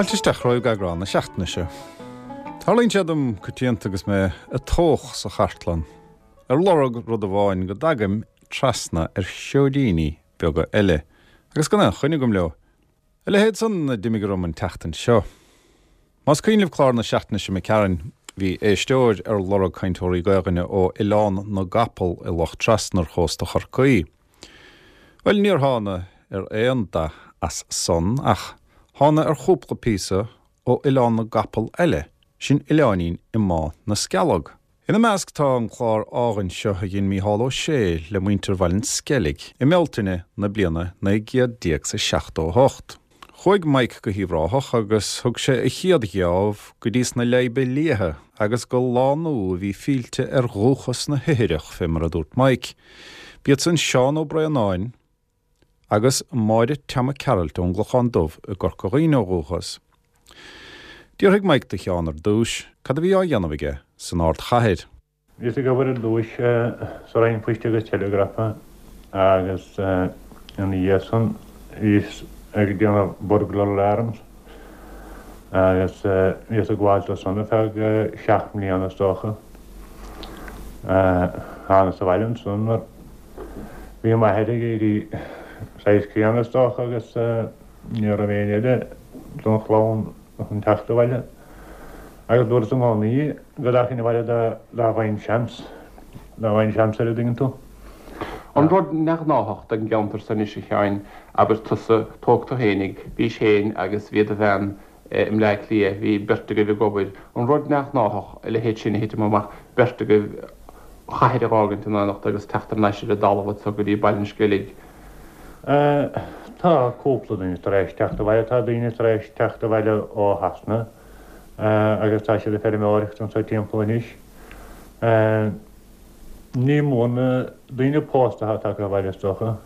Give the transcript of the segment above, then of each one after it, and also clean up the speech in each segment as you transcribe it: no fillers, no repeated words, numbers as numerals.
Fáilte isteach romhaibh go eagrán na seachtaine seo. Tarlaíonn sé dom coitianta agus mé ag tóch sa chartlann ar lorg rud amháin go dtagaim trasna ar sheoidíní beaga eile agus gan aon choinne agam leo. A leithéid san a d'imigh orm an tseachtain seo. Más cuimhin libh clár na seachtaine seo imigh tharainn, bhí éisteoir ar lorg cainteoirí Gaelainne ó Oileán na gCapall i Loch Trasna ar chósta Chorcaí. Bhuel, níor thána ar aon dath as san ach thána ar chúpla píosa ó Oileán na gCapall eile, sin oileáinín i mBá na Scealg. Ina measc tá an clár álainn seo a dhein Mícheál Ó Sé le muintir Bhaile an Sceilg i mBealtaine na bliana 1978. Chuaigh Mike go hUíbh Ráthach agus thug sé a chéad gheábh go dtí sna Leidhbe Liatha agus go lánú a bhí fillte ar dhúchas na hithreach, fé mar a dúirt Mike. B'iad san Seán Ó Braonáin agus Máire Teama Gearailt ón gClochán Dubh i gCorca Dhuibhne ó dhúchas. D'fhiafraigh Mike de Sheán ar dtúis cad a bhí á dhéanamh aige san ardchathair. Bhíos ag obair ar dtúis sa Roinn Poist agus Teileagrafa agus ina dhiaidh san bhíos ag déanamh burglar alarms agus bhíos ag gabháil dó san ar feadh seacht mbliana is dócha. Thánas abhaile ansan mar bhí m'athair ag éirí saghas críonna is dócha agus ní raibh éinne eile don chlann chun teacht abhaile. Agus dúras i gcónaí go dtagainn abhaile dá bhfaighinn seans, dá bhfaighinn seans air, an dtuigeann tú. An rud neamhghnáthach don gceantar so anois, a Sheáin, abair tusa, tóg tú fhéinig, bhís féin agus bhí do bhean i mBleá Cliath, bhí beirt agaibh ag obair, an rud neamhghnáthach a leithéid sin a thitim amach, beirt agaibh an chathair a dh'fhágaint in éineacht agus teacht thar n-ais ar an dtalamh anso go dtí Baile an Sceilg. Tá cúpla duine tar éis teacht abhaile, tá daoine tar éis teacht abhaile ó Shasana agus tá siad ag feirmeoireacht anseo timpeall anois. Ní mór na daoine pósta atá tagtha abhaile is dócha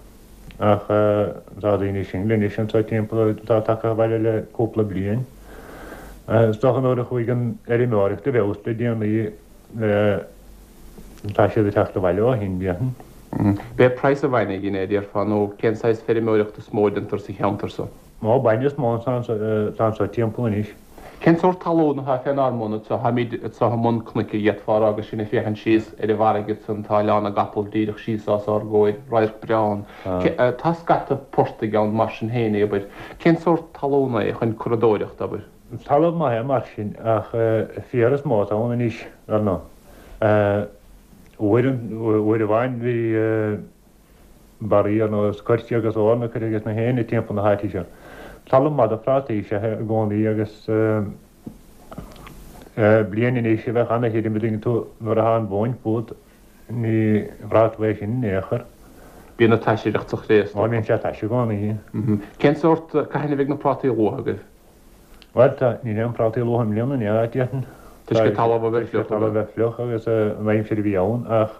ach tá daoine singil anois anseo timpeall atá tagtha abhaile le cúpla bliain. Is dócha nuair a chuaigh an fheirmeoireacht i bhfeabhas le déanaí Tá siad ag teacht abhaile ó shin, déarfainn. B'é praghas an bhainne a dhein é, a déarfá, nó cén saghas feirmeoireachta is mó a déantar sa cheantar so? Ó, bainne is mó atá anso timpeall anois. Cén sórt talún atá fén ár mbun anso? Táimid anso i mbun cnoic, a d'fhéadfá a rá, agus sinn ag féachaint síos ar an bhfarraige ansan, tá Oileán na gCapall díreach síos os ár gcomhair, radharc breá ann. Tá scata portaigh ann mar sin féin, abair. Cén sórt talún é chun curadóireacht, abair? Talamh maith é mar sin, ach féar is mó atá ann anois, dar ndóigh. Uair, uair amháin bhí barraí ar nós coirce agus eorna curtha ages na héinne timpeall na háite seo. Talamh maith do phrátaí is ea é i gcónaí agus bliain anois a bheadh ana-thirim, an dtuigeann tú, nuair atá an mhóin fút, ní bhraithfeá tú é sin in aon chor. Bíonn an taisireacht sa chré is dócha. Ó, bíonn sé taise i gcónaí. Cén sórt, cathain a bheidh na prátaí luath agaibh? Bhuel, tá, níl aon prátaí luath i mbliana, ní hea, déarfainn. Toisc an talamh a bheith fliuch. Toisc an talamh a bheith fliuch agus an aimsir a bhí ann, ach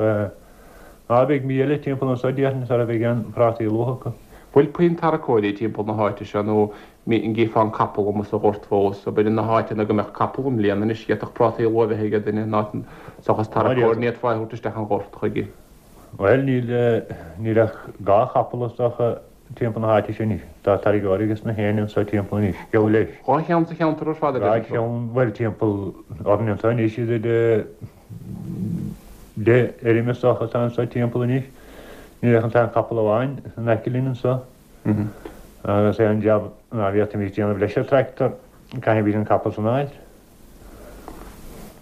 á, beidh mí eile timpeall anso, déarfainn, sara bheidh aon prátaí luath acu. Bhfuil puinn tarracóirí timpeall na háite seo nó an gcífeá an capall amuigh sa ghort fós? Abair, na háiteanna go mbeadh capall i mbliana anois, d'fhéadfadh prátaí luath a bheith aige duine, ná seachas tarracóir, ní fhéadfá é a thabhairt isteach an ghort chuige. Bhuel, níl, níl ach dhá chapall is dócha timpeall na háite sin anois. Tá tarraiceoir ages na héinne anso timpeall anois, geall leis. Dhá cheann sa cheantar ar fad, a Dhá deireann tú? cheann, bhuel, timpeall orainn anso anois, idir deich fheirm is dócha atá anso timpeall anois. Níl ach an t-aon chapall amháin in aice linn anso. Agus aon jab ná bhféadfaimis déanamh leis an tractor, caithfimid an capall san a fháilt.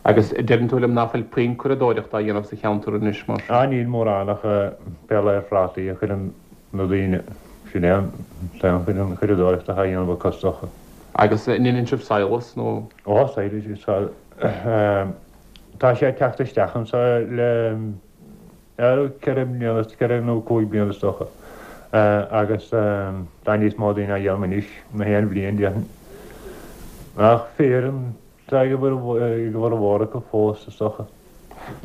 Agus deireann tú liom ná fuil puinn curadóireachta á dhéanamh sa cheantar anois, mar sin? Á, níl mórán ach pé lá ar phrátaí a chuireann na daoine, sin é an t-aon chuid den churadóireacht atá á dhéanamh acu is dócha. Agus an ndeineann sibh sadhlas nó? Ó, sadhlas, tá sé ag teacht isteach anso le 4 mbliana, 4 nó 5 bliana is dócha, agus tá níos mó daoine á dhéanamh anois ná aon bhliain, déarfainn. Ach féar atá ag a bhformhór acu fós, is dócha.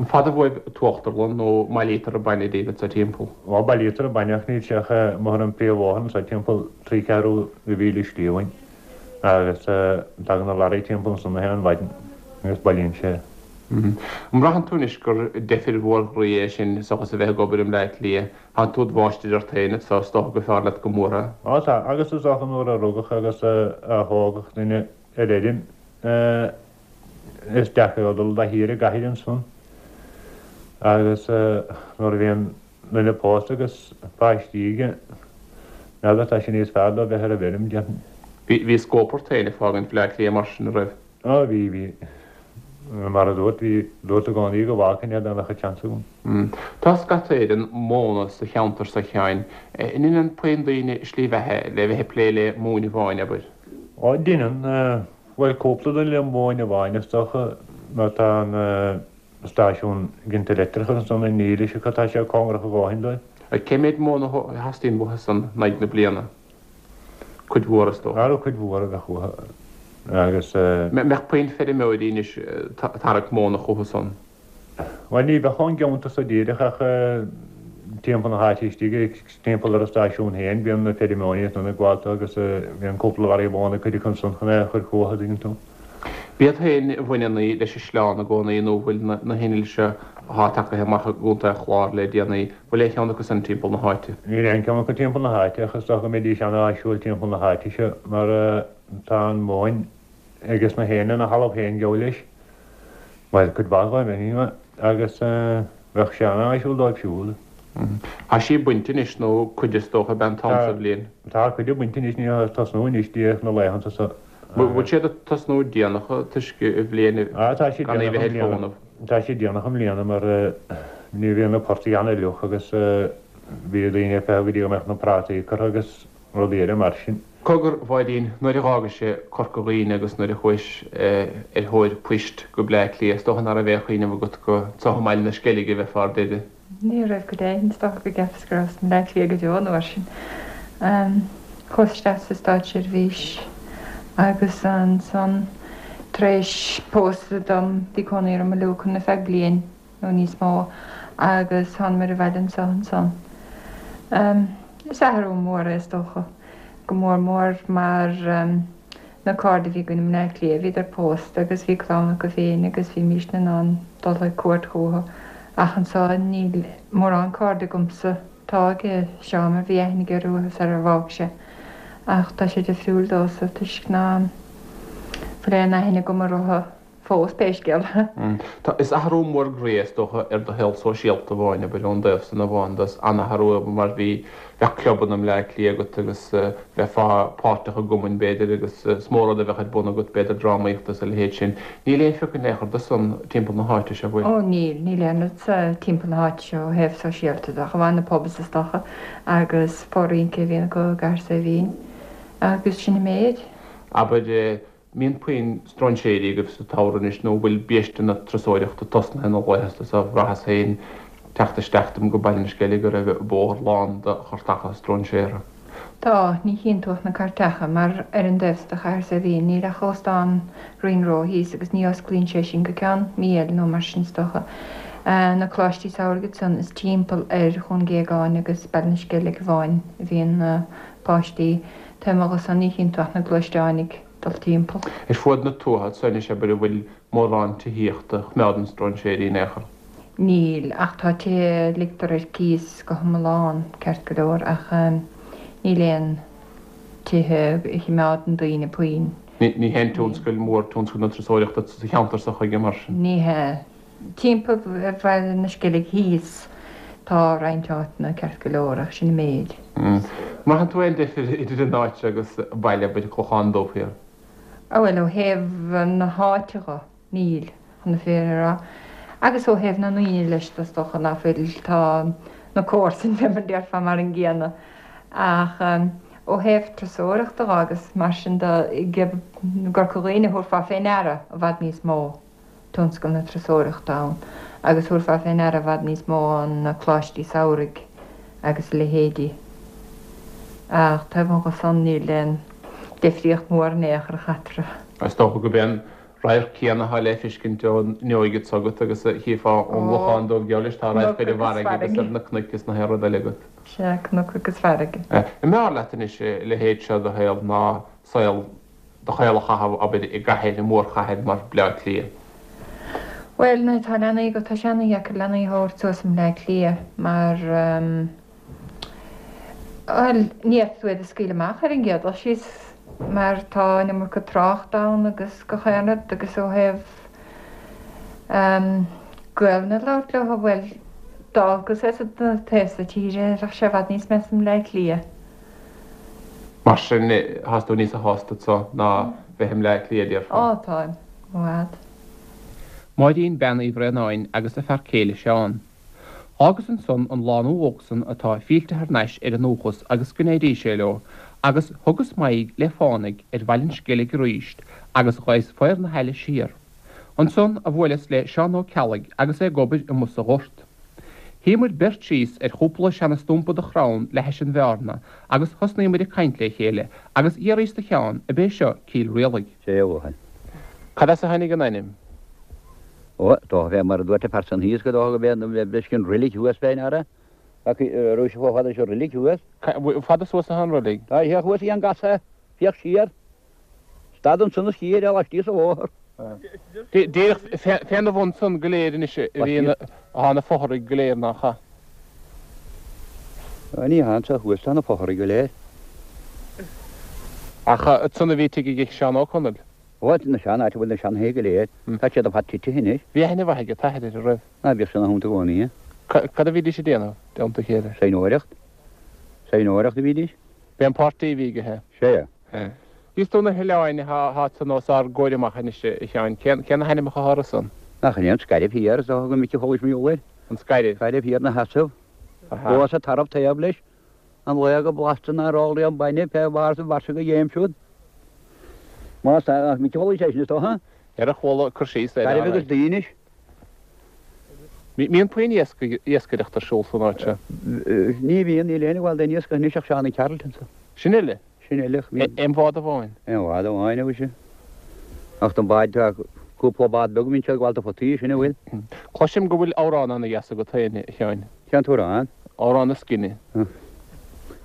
An fada uaibh an t-uachtarlann nó an mbailítear an bainne daoibh anso timpeall? Ó, bailítear an bainne ach níl sé ach amuigh ar an bpríomhbhóthar anso timpeall trí ceathrú de mhíle slí uainn agus tagann na lorraí timpeall ansan na haon mhaidin agus bailíonn sé. An mbraitheann tú anois gur deifir mhór ghroí é sin seachas a bheith ag obair i mBleá Cliath? Tánn tú id mháistir ort féin anso, is dócha gur fearr leat go mór é. Ó tá, agus is dócha nuair a rugadh agus a thógadh duine. ar fheirm is deacair dó dul de shíor i gcathair ansan agus nuair a bhíonn duine pósta agus páistí aige, n'fheadar, tá sé níos fearr dó bheith ar an bhfeirm, déarfainn. Bhí scóip ort féin ag fágaint Bhleá Cliath mar sin, a raibh? Á, bhí, bhí. Mar a dúrt, bhí, dúrt i gcónaí go bhfágfainn é dá mbeadh an seans agam. Tá scata Éireann móna sa cheantar so, a Sheáin. An ndeineann puinn daoine slí bheatha le bheith ag plé le móin amháin, abair? Á, deineann. Bhuel, cúpla duine le móin amháin is dócha, mar tá an stáisiún ginte leictreachais ansan i nDílis acu, tá sé cóngarach a dhóthain dóibh. Cé méid móna a theastaíonn uathu san in aghaidh na bliana? Cuid mhór is dócha. Ara cuid mhór a bheadh uathu agus. Mbeadh puinn feirmeoirí anois ag tarrac móna chucu san? Bhuel ní bheadh ón gceantar so díreach ach timpeall na háite istigh, timpeall ar an stáisiún féin, bíonn na feirmeoirí ansan ag gabháil agus bíonn cúpla barraí móna ag cuid acu ansan chun é a chur chucu, an dtuigeann tú. B'iad féin a bhaineann í leis an sleán i gcónaí nó bhfuil na hinnill seo athá tagaithe amach i gContae an Chláir le déanaí, bhfuil aon cheann acu san timpeall na háite? Níl aon cheann acu timpeall na háite ach is dócha go mbeidís an-áisiúil timpeall na háite seo mar tá an mhóin ages na héinne ina thalamh féin geall leis, bhuel cuid mhaith dhóibh anyway, agus bheadh sé an-áisiúil dóibh siúd. Tá sí bainte anois nó cuid is dócha ab ea an t-am sa bhliain? Tá cuid bainte anois, ní ag tosnú anois díreach na laethanta seo. Bhfuil siad ag tosnú déanach toisc an bhliain gan í bheith ar fónamh? Tá siad déanach i mbliana mar ní bhíonn na portaigh an-fhliuch agus bhí daoine ag feitheamh go dtí go mbeadh na prátaí curtha agus rudaí eile mar sin. Cogar, a Mháirín, nuair a dh'fhágais Corca Dhuibhne agus nuair a chuais ar thóir poist go Bleá Cliath, is dócha ná raibh aon chuimhneamh agat go anso i mBaile na Sceilge a bheifeá ar deireadh. Ní raibh go deimhin, is dócha go gceapas go rabhas i mBleá Cliath go deo an uair sin. Chuas isteach sa státseirbhís agus ansan tar éis pósadh dom bhí cónaí orm i Lucan ar feadh bliain nó níos mó agus thánamair abhaile anso ansan. Is athrú mór é is dócha, go mór mór mar Na cairde a bhí againn i mBleá Cliath, bhíodar pósta agus bhí clann acu féin agus bhímísne in ann dul ag cuairt chucu ach anso níl mórán cairde agamsa. Tá ag Seán mar bhí aithne aige orthu sar ar bhfág sé ach tá sé difriúil domhsa toisc ná fuil aon aithne agam orthu. fós, pé scéal é. Tá, is athrú mór groí é is dócha ar do shaol sóisialta amháin, abair, ón dtaobh san amháin de, is an-athrú é mar bhí, bheadh clubanna i mBleá Cliath agat agus bheifeá páirteach i gcumainn b'fhéidir agus is mó rud a bheadh ar bun agat b'fhéidir drámaíocht agus a leithéid sin. Níl aon phioc in aon chor de san timpeall na háite seo, bhfuil? Ó níl, níl aon rud sa timpeall na háite seo ó thaobh sóisialta de, ach amháin na pubs is dócha agus fó-rince a bhíonn acu i gCathair Saidhbhín agus sin an méid. Abair, mbíonn puinn stróinséirí agaibh sa tsamhradh anois nó bhfuil biaiste na turasóireachta tosnaithe na laethanta so? Bhraitheas féin teacht isteach dom go Baile na Sceilge go raibh an bóthar lán de chartacha stróinséartha. Tá, ní chíonn tú ach na cairteacha, mar ar an dtaobh so de Chathair Saidhbhín níl ach Óstán Ring Row thíos agus ní osclaíonn sé sin go ceann mí eile nó mar sin is dócha. Na coláistí samhraidh ansan is timpeall ar Dhún Géagáin agus Baile na Sceilge amháin a bhíonn na páistí. Taobh amuigh dhe san ní chíonn tú ach na gluaisteáin ag dul timpeall. Ar fuaid na tuaithe anso anois abair an bhfuil mórán tithíochta a choimeádann stróinséirí in aon chor? Níl, ach tá tithe a ligtear ar cíos go hiomlán, ceart go leor, ach níl aon tithe a choimeádann daoine puinn. Ní haon tionscal mór tionscal na turasóireachta sa cheantar seo chuige mar sin? Ní hea. Timpeall Bhaile na Sceilge thíos tá roinnt áiteanna ceart go leor ach sin an méid. Mbraitheann tú aon difir idir an áit seo agus baile, abair, Clochán Dubh Thiar? Á bhuel, ó thaobh na háite dho, níl, chun na fírinne a rá. Agus ó thaobh na ndaoine leis is dócha ná fuil, tá na comharsain fé mar a déarfá mar an gcéanna. Ach ó thaobh turasóireachta dho agus mar sin de, i gCorca Dhuibhne thabharfá fé ndeara i bhfad níos mó. tionscal na turasóireachta ann agus thabharfá fé ndeara i bhfad níos mó na coláistí samhraidh agus a leithéidí. Ach taobh amuigh dhe san níl aon deifríocht mhór in aon chor eatarthu. Is dócha gurb é an radharc céanna atá le feiscint ón fhuinneoig s'agat agus a chífeá ón gClochán Dubh geall leis, tá radharc ar an bhfarraige agus ar na cnoic is na haon rud eile agat. Sea, cnoc agus farraige. An mb'fhearr leat anois a leithéid seo de shaol ná saol do shaol a chaitheamh, abair, i gcathair, i mórchathair mar Bleá Cliath? Bhuel, nuair atá leanaí agat, tá sé ana-dheacair leanaí a thabhairt suas i mBleá Cliath mar, bhuel, ní fhéadfaidh tú iad a scaoileadh amach ar an gcéad dul síos. mar tá an iomarca trácht ann agus gach aon rud agus ó thaobh Gaelainn a labhairt leo, bhuel, d'olcas é sa taobh so tíre, bheadh sé i bhfad níos measa i mBleá Cliath. Mar sin, thás tú níosa shásta anso ná bheith i mBleá Cliath, déarfá? Á, táim, i bhfad. Máirín Bean Uí Bhraonáin agus a fear céile Seán. Fhágas ansan an lánú óg san atá fillte thar n-ais ar a ndúchas agus go n-éirí sé leo, agus thugas m'aghaidh le fánaidh ar Bhaile an Sceilg aríst agus ghabhas faobhar na haille siar. Ansan a bhuaileas le Seán Ó Ceallaigh agus é ag obair amuigh sa ghort. Shuíomair beirt síos ar chúpla seana-stumpa de chrann le hais an bheárna agus thosnaíomair ag caint le chéile agus d'fhiafraíos de Sheán ab é seo Cill Rialaig. Sé a bhuachaill. Cad as a tháinig an ainm? Ó, dócha bheith mar a dúirt an fear san thíos go dócha go bheith leis an roilig thuas féin ara. Raibh sé chomh fada leis an roilig thuas. Fada suas atá an roilig? Tá sé thuas ag an gcasadh, féach siar. Stad ansan is chífir é laistíos an bhóthar. Díreach féna bhun san go léir anois a bhí atá na fothraigh go léir nach ea? Ní hea, anso thuas tá na fothraigh go léir. Ach ansan a bhí tigh ag Seán Ó Conaill. Ó, na sean, áit a bhfuil na seanthithe go léir. Tá siad ar fad tite anois. Bhí aithne mhaith ag an t-athair air, an raibh? Ná bhíodh sé ina theannta i gcónaí. Cad a bhídís ag déanamh, i dteannta a chéile? Saighneoireacht. Saighneoireacht a bhídís. B'é an páirtí a bhí aige é. Sea. Thíos do na hoileáin atá ansan os ár gcomhair amach anois, a Sheáin, cé na hainmneacha atá orthu san? Nach in é an Scairbh Thiar is dócha go minic a chualais mar gheall air. An Scairbh. Scairbh Thiar 'na sheasamh. Thuas an tarbh taobh leis. An laoch go blasta nár ól riamh bainne fé bharr sa bhfairsinge go dhéim siúd. Más ea, nach minic a chualais é sin is dócha? Ar a chuala cur síos air. Scairbh agus Daoinis. Mbíonn puinn iascaireacht ar siúl san áit seo? Ní bhíonn, níl éinne ag gabháil d'aon iascach anois ach Seán Carlton so. Sin uile? Sin uile. Aon bhád amháin? Aon bhád amháin, a mhuise. Ach don bád, tá cúpla bád beag a bhíonn siad ag gabháil do photaí, sin a bhfuil. Cloisim go bhfuil amhrán ana-dheas agat féin, a Sheáin. Cén t-amhrán? Amhrán na Scine.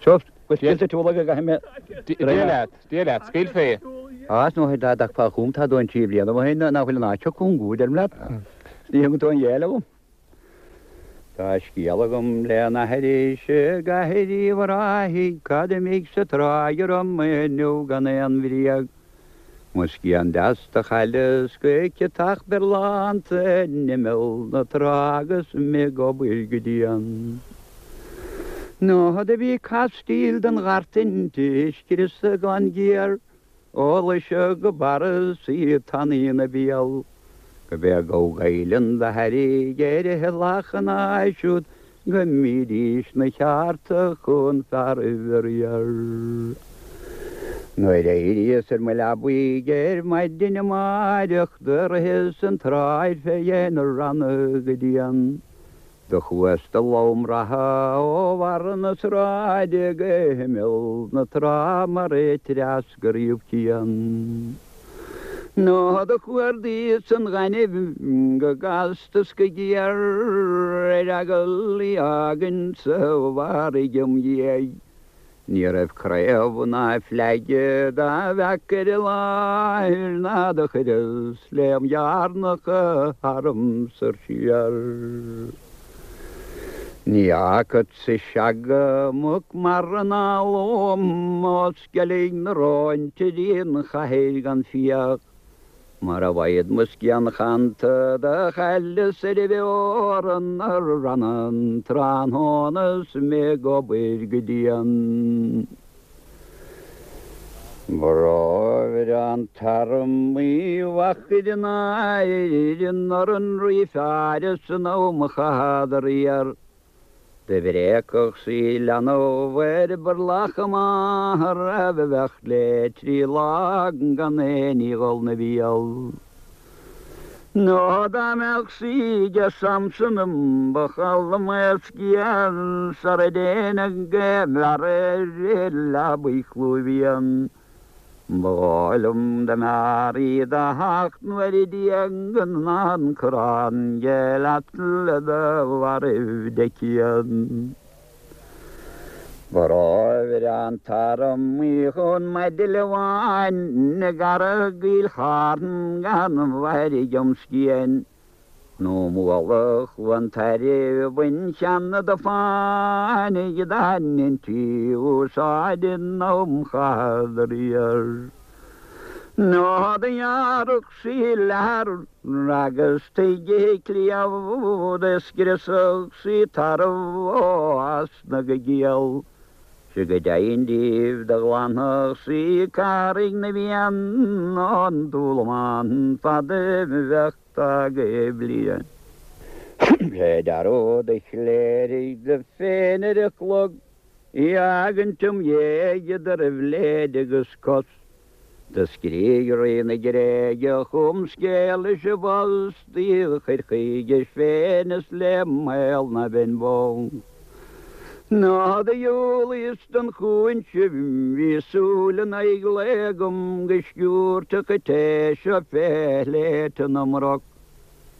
Seo, go scaoilte tú uilig go gcaithfidh mé. Dia leat. Dia leat, scaoil fé. Á, is ndóigh dá dtagfá chugam tá dóthain trí bliana ó shin nach bhfuil an áit seo cúng go, deirim leat. Is ní thugann tú aon ghéill agam. Tá scéal agam le n-aithris i gcathair Uíbh Ráthaigh, cad imigh sa tráigh orm inniu gan aon bhréag. Mo scian deas do chailleas go ciotach berlánta in imeall na trá agus mé ag obair go dian. Nó do bhí castaíl den ghart inti scriosta glan géar ó Laoise go Barra 's í tanaí ina béal. Go b'é gabh Gaibhleann do thairrig ar a lachan siúd go mbídís 'na cheárta chun fearaibh a riar. Nuair a éiríos ar mo leabaidh ar maidin amáireach do ritheas an tsráid fé dhéin na ranna go dian. Do chuas de lom reatha ó bharra na sráide go himeall na trá mar a treascar riamh cian. Nó do chuardaíos an ghainimh go gasta 's go géar ar eagal í fhágaint sa bhfarraige im dhiaidh. Ní raibh craobh ná fleaige dá bhfeac ar an láthair ná do chuireas léim dhearnacha tharam soir siar. Ní fhágfadsa seaga muc mara ná lom ó Sceilg na Rón dtí an chathair gan fiach. Mara bhfaghad mo scian chanta do chailleas ar an bhfeorann na ranna an tráthnóna 's mé ag obair go dian. Ba rómhaire an t-arm Uí Mhachair in Éirinn ar an rí fearr san am a chaitheadar iar. Do bhréagfadh sí leanbh ar burlach a máthar a bheadh le 3 lá gan aon ní dhul 'na bhéal. Nó dá mbeadh sí ag Samson ba chall mo scéal sara dtéinn go bhfear ar leabaidh chlúimh fhiain. Ba dhóigh liom dá mb'fhearr í do theacht nuair a d'éag ná an corrán de leat le do mhairbh de cian. Ba rómhaire an t-arm Uí Chonmaidile bháin i gCarraig Fhill Charn gan mhairg im scian. Nó Mullach Chluain Tairbh bhain cheana do fáinigh dá ndeintí úsáid in am Chath Riar. Nó do ghearrfadh sí leathar agus tuige cliabh do scriosfadh sí tarbh ó osna go giall. 'Sea go deimhin daoibh do ghlanfadh sí Carraig na bhFiann ón dúlamán fad a bheadh tagtha bliain. Sé dearúd a chléirigh di féin ar a clog í fhágaint im dhéidh idir bhléid agus cos. Do scrígh Rí na Gréige chugam scéal is i bpost í a chur chuige féin is le mbaol ná beinn bó. Ná do dhiúlaíos don chúinse bhí súil in aghaidh lae agam go sciúirfeadh an té seo fé shléibhte na mbroc.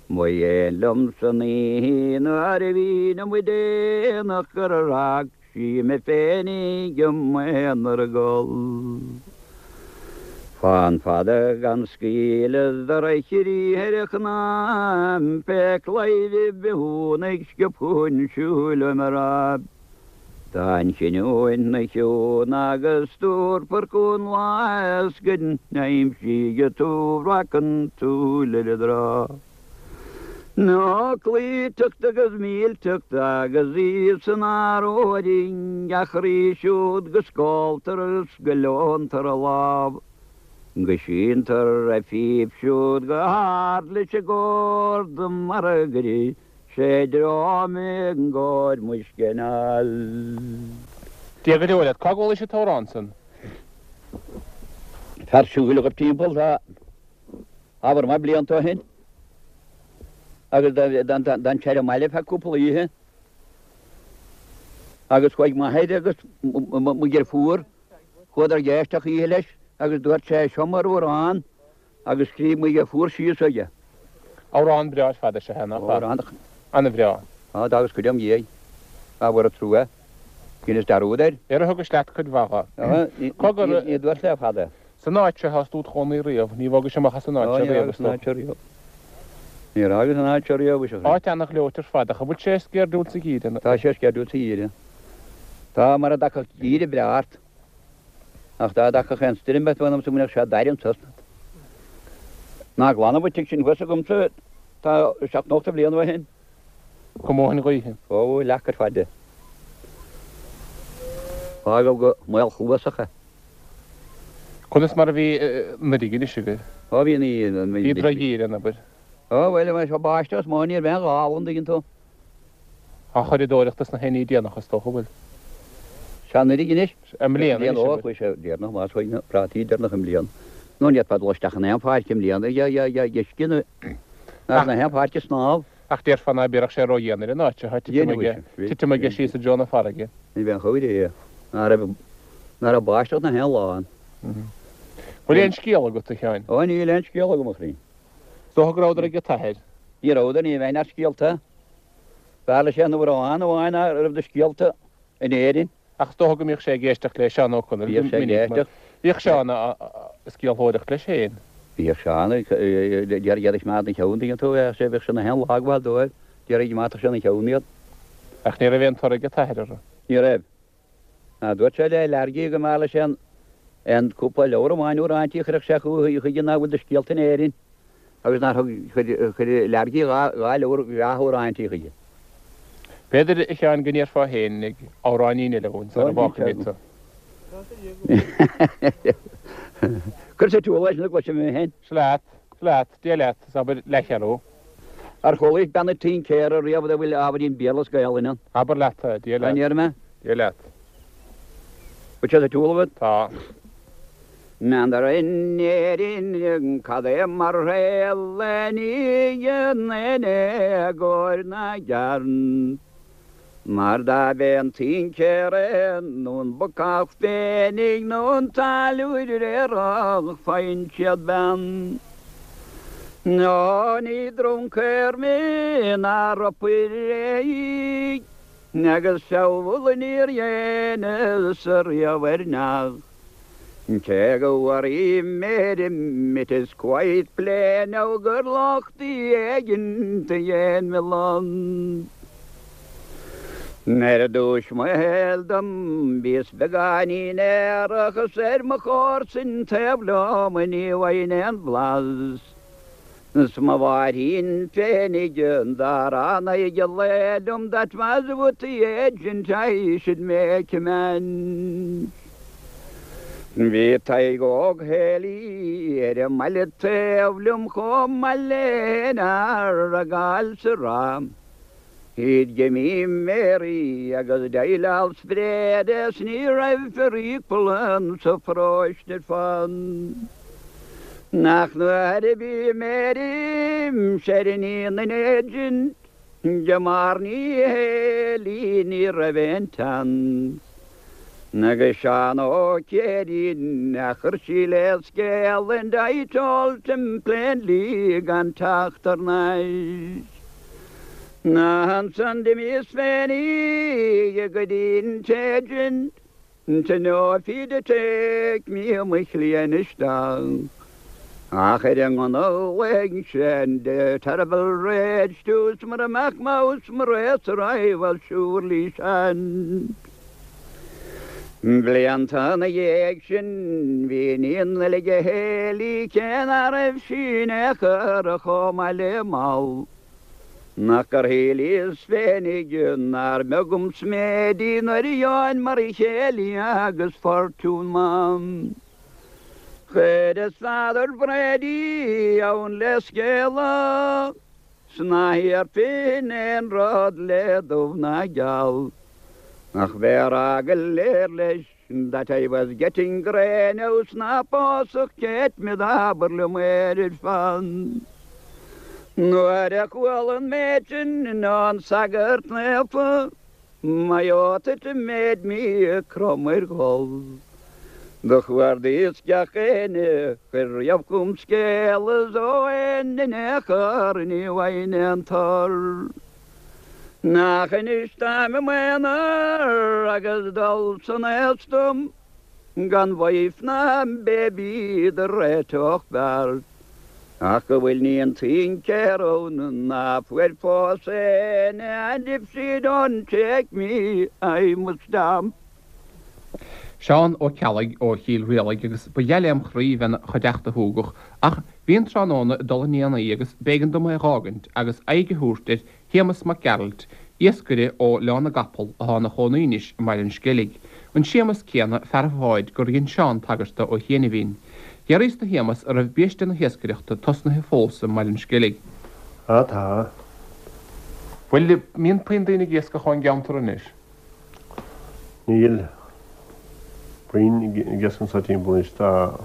Ba ghéan liom san oíche nuair a bhínn amuigh déanach gur fhág sí mé féinig i m'aonar ag gol. Fán fada gan scaoileadh do reachairí ar a chnámh pé claidheamh bithiúnaigh sciobtha chun siúil uaim a rá. Tá an chinniúint 'na chiúin agus tabharfar chugainn lá is go n-aimsídh tú breac an tsúil ar an dtrá. Nó cloíteacht agus millteacht agus í san áróiring a chroí siúd go scóltar is go leontar a lámh, go síntear a phíp siúd go hard leis an gcórd mar a gcuireadh sé dream i gcóir muisce anall. Dia go deo leat. Cá gcualaís an t-amhrán san? Fear siúil a ghaibh timpeall tá. Ábhar maith blianta ó shin agus d'fhan sé ar an mbaile feadh cúpla oíche agus chuaigh m'athair agus mo dheirfiúr, chuadar ag éisteacht oíche leis agus dúirt sé seo m'amhrán agus scríobh mo dheirfiúr síos aige. Amhrán breá ar fad é seo, nach ea? An-bhreá. Tá, agus cuid im dhiaidh. Ábhar trua. Dheineas dearúd air. Ar thugais leat cuid mhaith dho? Ní dúirt le fada. San áit seo thá tú id chónaí riamh, ní bhogais amach as an áit seo riamh, is dócha. Níor fhágas an áit seo riamh, is ea. Áit ana-ghleoite ar fad, ach an bhfuil sé sceirdiúil sa gheimhreadh? Tá sé sceirdiúil sa gheimhreadh. Tá, mar a dtagfadh geimhreadh breá ort. Ach dá dtagfadh aon stoirm ort, mh'anamsa go mbeadh sé dair anso. Ná glanadh an tigh sin thuas agamsa, tá 70 bliain ó shin. Chomh mór an ghaoth. Ó, leac ar fad de. Fágadh go maolchluasach é. Conas mar a bhí anuraidh anois agaibh? Ó, bhí an. Bhí drochgheimhreadh ann, abair. Ó, bhuel, bhí sé báisteach is mó, ní raibh aon ghála, an dtuigeann tú. Á churadóireacht is na haonaí déanach, is dócha, bhfuil. Sea, anuraidh anois. I mbliana anois, abair. Ó, chuaigh sé deireanach, más chuaigh na prátaí deireanach i mbliana. Nó ní fhéadfá dul isteach in aon pháirc i mbliana, uisce na, na haon pháirc ag snámh. Ach déarfá ná bíodh sé ró-dhian ar an áit seo, titim aige síos i dtreo na farraige. Ní bheinn chomh réidh, ná raibh, ná raibh báisteach na haon lá ann. Bhfuil aon scéal agat, a Sheáin? Ó, níl aon scéal agam, a chroí. Is dócha go rabhadar ag an t-athair. Ní rabhadar, ní bheinn as scéalta. B'fhearr leis aon amhrán amháin a raibh de scéalta in Éirinn. Ach is dócha go mbíodh sé ag éisteacht le Seán Ó Conaill go minic, mar bhíodh Seán ag scéalthóireacht leis féin. Bhíodh Seán ag iarraidh iad a choimeád ina cheann, tuigeann tú, bheadh sé, bheadh sé na haon lá ag gabháil dóibh, d'iarraidh go mbeadh sé ina cheann iad. Ach ní raibh aon toradh ag an t-athair orthu. Ní raibh. Ná dúirt sé le Leargaí go mb'fhearr leis aon, aon cúpla leabhar amháin uaireanta a chuirfeadh sé chuige nach bhfuil de scéalta in Éirinn. Agus nár thug, chuir, chuir Leargaí dha leabhar bhreátha amhráintí chuige. B'fhéidir, a Sheáin, go ndéarfá fhéinig amhráinín eile dhúinn sara bhfágfaimid tú. Cuir sa tsiúl é sin a gcloisfidh mé féin. Seo leat, seo leat, Dia leat, is abair leathcheathrú. Ar chualaís bean an tincéara riamh a bhfuil ábhairín Béarla is Gaelainn ann? Abair leat é, Dia leat. An ndéarfaidh mé? Dia leat. Bhfuil sé sa tsiúl agat? Tá. N'fheadar in Éirinn cad é mar shaol a nígheann in éagóir na gcearn. Mar dá b'é an tincéara é nó an bacach féinig nó an táilliúir aerach faigheann siad bean. Nó ní druncaer mé ná ropaire í agus feall níor dheineas riamh ar neach. Cé go bhfuair mé it is quite plain now gur locht éigin a dhein me land. Ar dtúis mo shaoil dom bhíos beagáinín aerach is ar mo chomharsain taobh liom ní bhfaighinn aon bhlas. 'S mo mháithrín féinig dá raibh in aghaidh an lae liom that was with the agent I should make amends. Bhí Tadhg Óg Héilí ar an mbaile taobh liom chomh maith le haon fhear a gabháil sa ráth. He'd give me Mary agus d'I spread is ní raibh fer equal sa pharóiste ar fad. Nach nuair a bhí Mary ar iníon an agent de Marnie Healy ní raibh aon tseans. Agus Seán Ó Céirín a chuir sí le scéal and I told him plainly gan teacht thar n-ais. Ansan d'imíos féinig go dtí'n t-agent to know if he'd take me mo chliain isteach. Ach ar an ngunna ghlaoigh sé in a terrible rage to 's mura mbeadh mouse mo racer I was surely shent. Blianta ina dhiaidh sin bhí iníon eile ag Héilí cé ná raibh sí in aon chor chomh maith le Moll. Nach gur shíleas féinig nár mbeag an sméid í nuair a gheobhainn mar chéile agus fortún maith. Chuireas Father Brady ann le scéala 's ná hiarrfainn aon rud le dubh ná geal ach bheith a rá go léir leis that I was getting grey now 's ná pósfadh Kate me d'abair liom air ar fad. Nuair a chuala an méid sin ón sagart naofa My oath it made me crom ar ghol. Do chuardaíos gach éinne chuir riamh chugam scéala 's ó éinne in aon chor ní bhfaighinn aon tor. Nach anois táim i m'aonar agus dul san aos dom gan wife ná baby do réiteodh beart. Ach go bhfuil níon tincéir ann ná fuair fós éinne and if she don't take me I must stamp. Seán Ó Ceallaigh ó Chill Rialaig agus ba gheal lem chroí bheith 'na chuideachta shúgach ach bhí an tráthnóna ag dul 'un déanaí agus b'éigean dom é dh'fhágaint agus aghaidh a thabhairt ar Shéamus Mac Gearailt, iascaire ó Oileán na gCapall atá ina chónaí anois i mBaile an Sceilg, an Séamus céanna, fear an bháid, gur dhein Seán tagairt dó ó chianaibhín. D'fhiafraíos de Shéamus an raibh biaiste na hiascaireachta tosnaithe fós i mBaile an Sceilg. Á tá. Bhuel, mbíonn puinn daoine ag iascach ón gceantar anois? Níl puinn ag iascach anso timpeall anois. Tá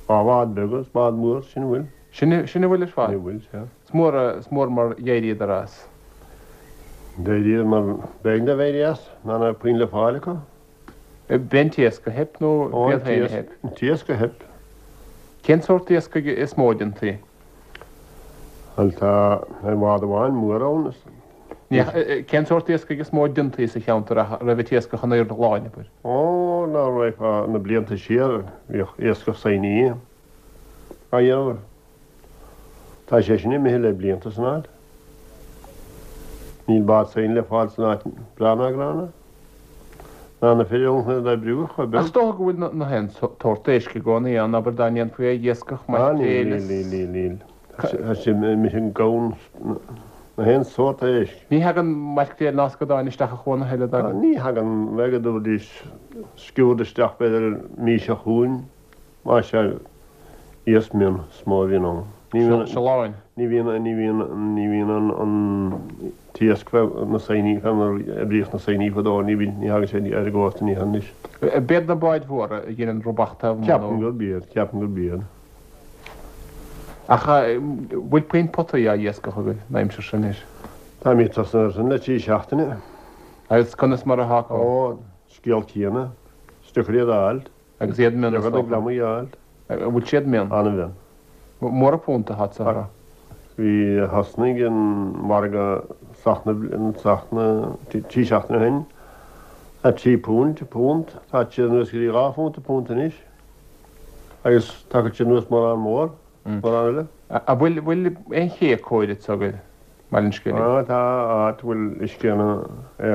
dhá bhád beaga is bád mór, sin a bhfuil. Sin a bhfuil ar fad? Sin a bhfuil, sea. Is mór, is mór mar d'éiríodar as. D'éiríodar mar b'éigean dóibh éirí as, ná raibh puinn le fáil acu. B'é an t-iasc a theip nó b'iad féin a theip? An t-iasc a theip. Cén sórt iascaigh is mó a déantaí? Bhuel, tá ar bhád amháin mór ann is. Ní, cén sórt iascaigh is mó a déantaí sa cheantar ach raibh an t-iascach in airde an láin, abair? Ó, ná raghfá na blianta siar, bhíodh iascach saighní á dhéanamh. Tá sé sin imithe le blianta san áit. Níl bád saighne le fáil san áit breá ná gránna. Ná na fir ann chun iad a oibriú ach chomh beag. Ach is dócha go bhfuil na haon tsórt éisc i gcónaí ann, abair dá ndéanfaí é a iascach, maicréil is. Níl, níl, níl, níl. Tá sé imithe gann na haon sórt éisc. Ní thagann maicréil ná scadáin isteach a chuan a thuilleadh, dtagann? Ní thagann, bheadh go dtabharfaidís sciúrd isteach b'fhéidir mí seo chugainn. Más ea, iasc mion is mó a bhíonn ann. Ní bhíonn. Siolláin. Ní bhíonn, ní bhíonn, ní bhíonn an, an t-iasc fé na saighní, fé mar a oibríodh na saighní fadó, ní bhíonn, ní thagann sé ar an gcósta, ní anois. B'iad na báid mhóra a dheineann rubach taobh amuigh nó? Ceapaim gurb iad, ceapaim gurb iad. Ach bhfuil puinn potaí á iascach agaibh an aimsir seo anois? Táimid tosnaithe air sin le trí seachtaine. Agus conas mar atá acu? Ó, scéal céanna. Is deacair iad a fháilt. Agus iad mion is dócha. An bhfuil siad mion? An-mhion. Mór an punt atá sa. Bhí, thosnaigh an margadh seachtain, seachtain, trí seachtaine ó shin, £3 punt, tá siad anuas go dtí £2 an punt anois. Agus tagann sé anuas mórán mór, mórán eile. An bhfuil, bhfuil aon ché cóir agat i mBaile an Sceilg? Á, tá áit a bhfuil uisce ann ar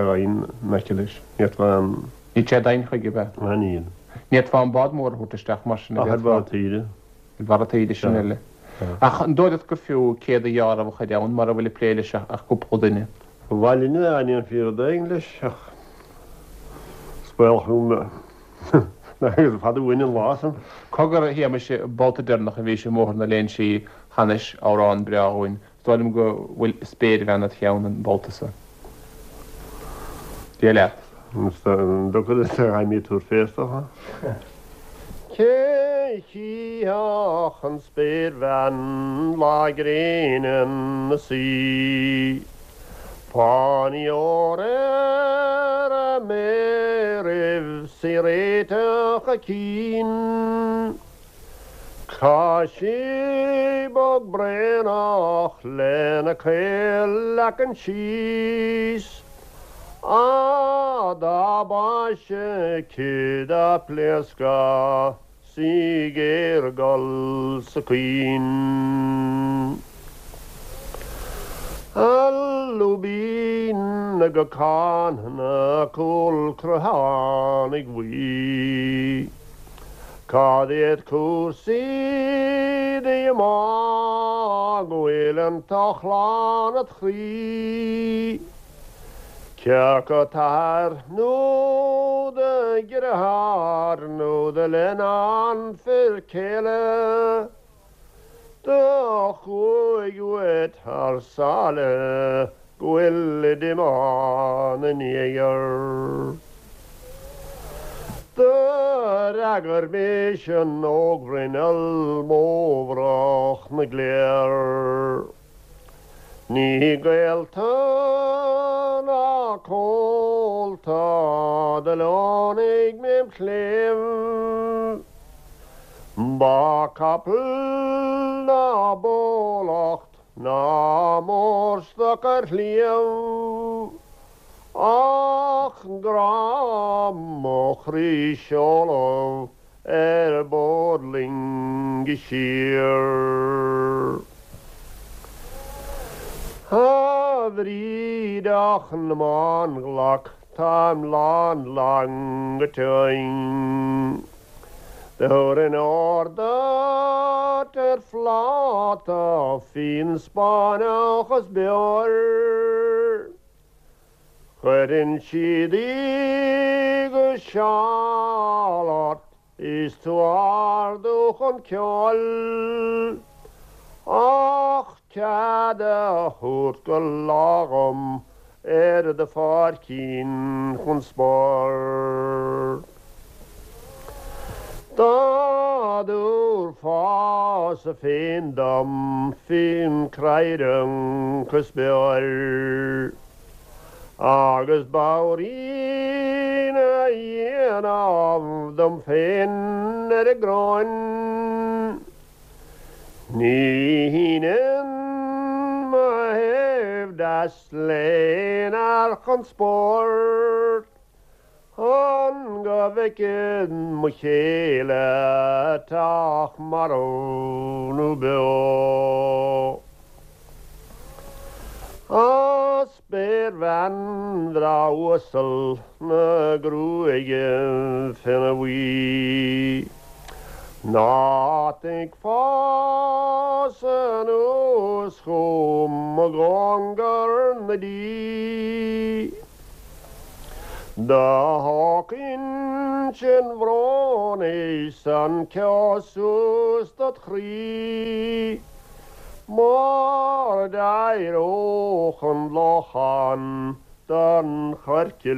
abhainn in aice leis. Ní fhéadfá an. Níl sé doimhin chuige, ab ea? Á, níl. Ní fhéadfá an bád mór a thabhairt isteach mar sin, Ach ar bharr taoide. Ar bharr taoide, sin eile. Ach an dóigh leat gur fiú céad a ghearradh a chur ann mura bhfuil ag plé leis ach cúpla duine? Ba mhaith linn dá ndéanfaí rud éigin leis ach is baolach gur fada uainn an lá san. Cogar, a Shéamais, an babhta deireanach a bhís i mBóthar na Léinsí chanais amhrán breá dhúinn. Is dóigh liom go bhfuil spéirbhean id cheann an babhta so. Dia leat. An dtiocfadh leat a ghaimí tabhair fé is dócha. Cé chífeadh an spéirbhean lá gréine 'na suí? Fáinní óir ar a méaraibh 's í réiteach a cinn. Tá sí bog braonach lena caol leacan síos, Á dá mba ise aici dá pléascadh 's í géar-ghol 's ag caoin. A lúibín go gcáin na cúl creathánaigh bhuí. Cad iad cúrsaí díomá go bhfuil an t-ochlán id chroí? Cé acu t'athair nó do dheartháir nó do leannán fir céile? Do chuaigh uait thar sáile go bhfuil díomá 'na ndiaidh. Do fhreagair mise an ógbhruinneall mómhrach na gcléir. Ní gaolta ná comhalta do leonaigh mé im chléibh. Ba capall ná bólacht ná mórstoc ar shliabh, ach grá mo chroí seoladh ar bord loinge siar. A bhrídeach na mbánghlac táim lán lán go tinn. Thabharfainn ór duit ar phláta fíon Spáinneach is beoir. Cuireann siad í go seal ort is tú ardú chun ceoil, ach cead a thabhairt go lá dhom ar do pháircín chun spóirt. Dá dtabharfása féin dom fíon craoibhreach is beoir, agus babhairín a dhéanamh dom féin ar an gcróin, Ní shínfinn mo thaobh deas l'aon fhear chun spóirt chun go bhfeicfinn mo chéile teach marbh nó beo. A spéirbhean bhreá uasal na gruaige finne buí, Ná tig fás anuas chugam i gcóngar na dí. Do thóg uinsinn bhróin is an ceo suas dod chroí. Mar d'éireodh an lochán den choirce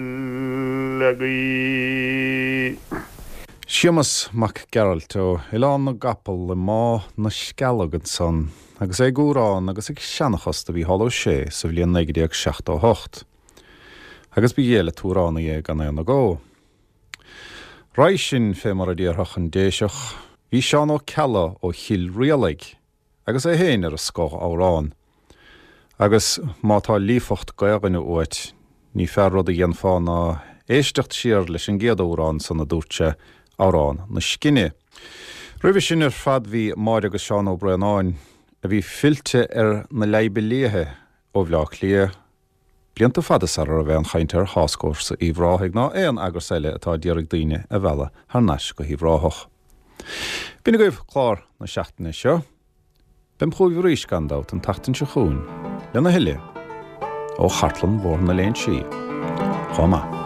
le gaoith. Séamas Mac Gearailt ó Oileán na gCapall i mBá na Scealg ansan agus é ag amhrán agus ag seanchas do Mhícheál Ó Sé sa bhliain 1978. Agus ba ghé le t-amhránaí é gan aon agó. Roimhe sin, fé mar a déarfadh an Déiseach, bhí Seán Ó Ceallaigh ó Chill Rialaig agus é féin ar an scoth amhrán. Agus má tá líofacht Gaelainne uait, ní fearr rud a dhéanfá ná éisteacht siar leis an gcéad amhrán san a dúirt sé, Amhrán na Scine. Roimhe sin ar fad bhí Máire agus Seán Ó Braonáin, a bhí fillte ar na Leidhbe Liatha ó Bhleá Cliath, blianta fada sara raibh aon chaint ar Thascfhórsa Uíbh Ráthaigh ná aon eagras eile atá a d'iarraidh daoine a mhealladh thar n-ais go hUíbh Ráthach. B'in agaibh clár na seachtaine seo. Beam chugaibh arís, gan dabht, an tseachtain seo chugainn lena thuilleadh ó Chartlann Bhóthar na Léinsí. Chomh maith.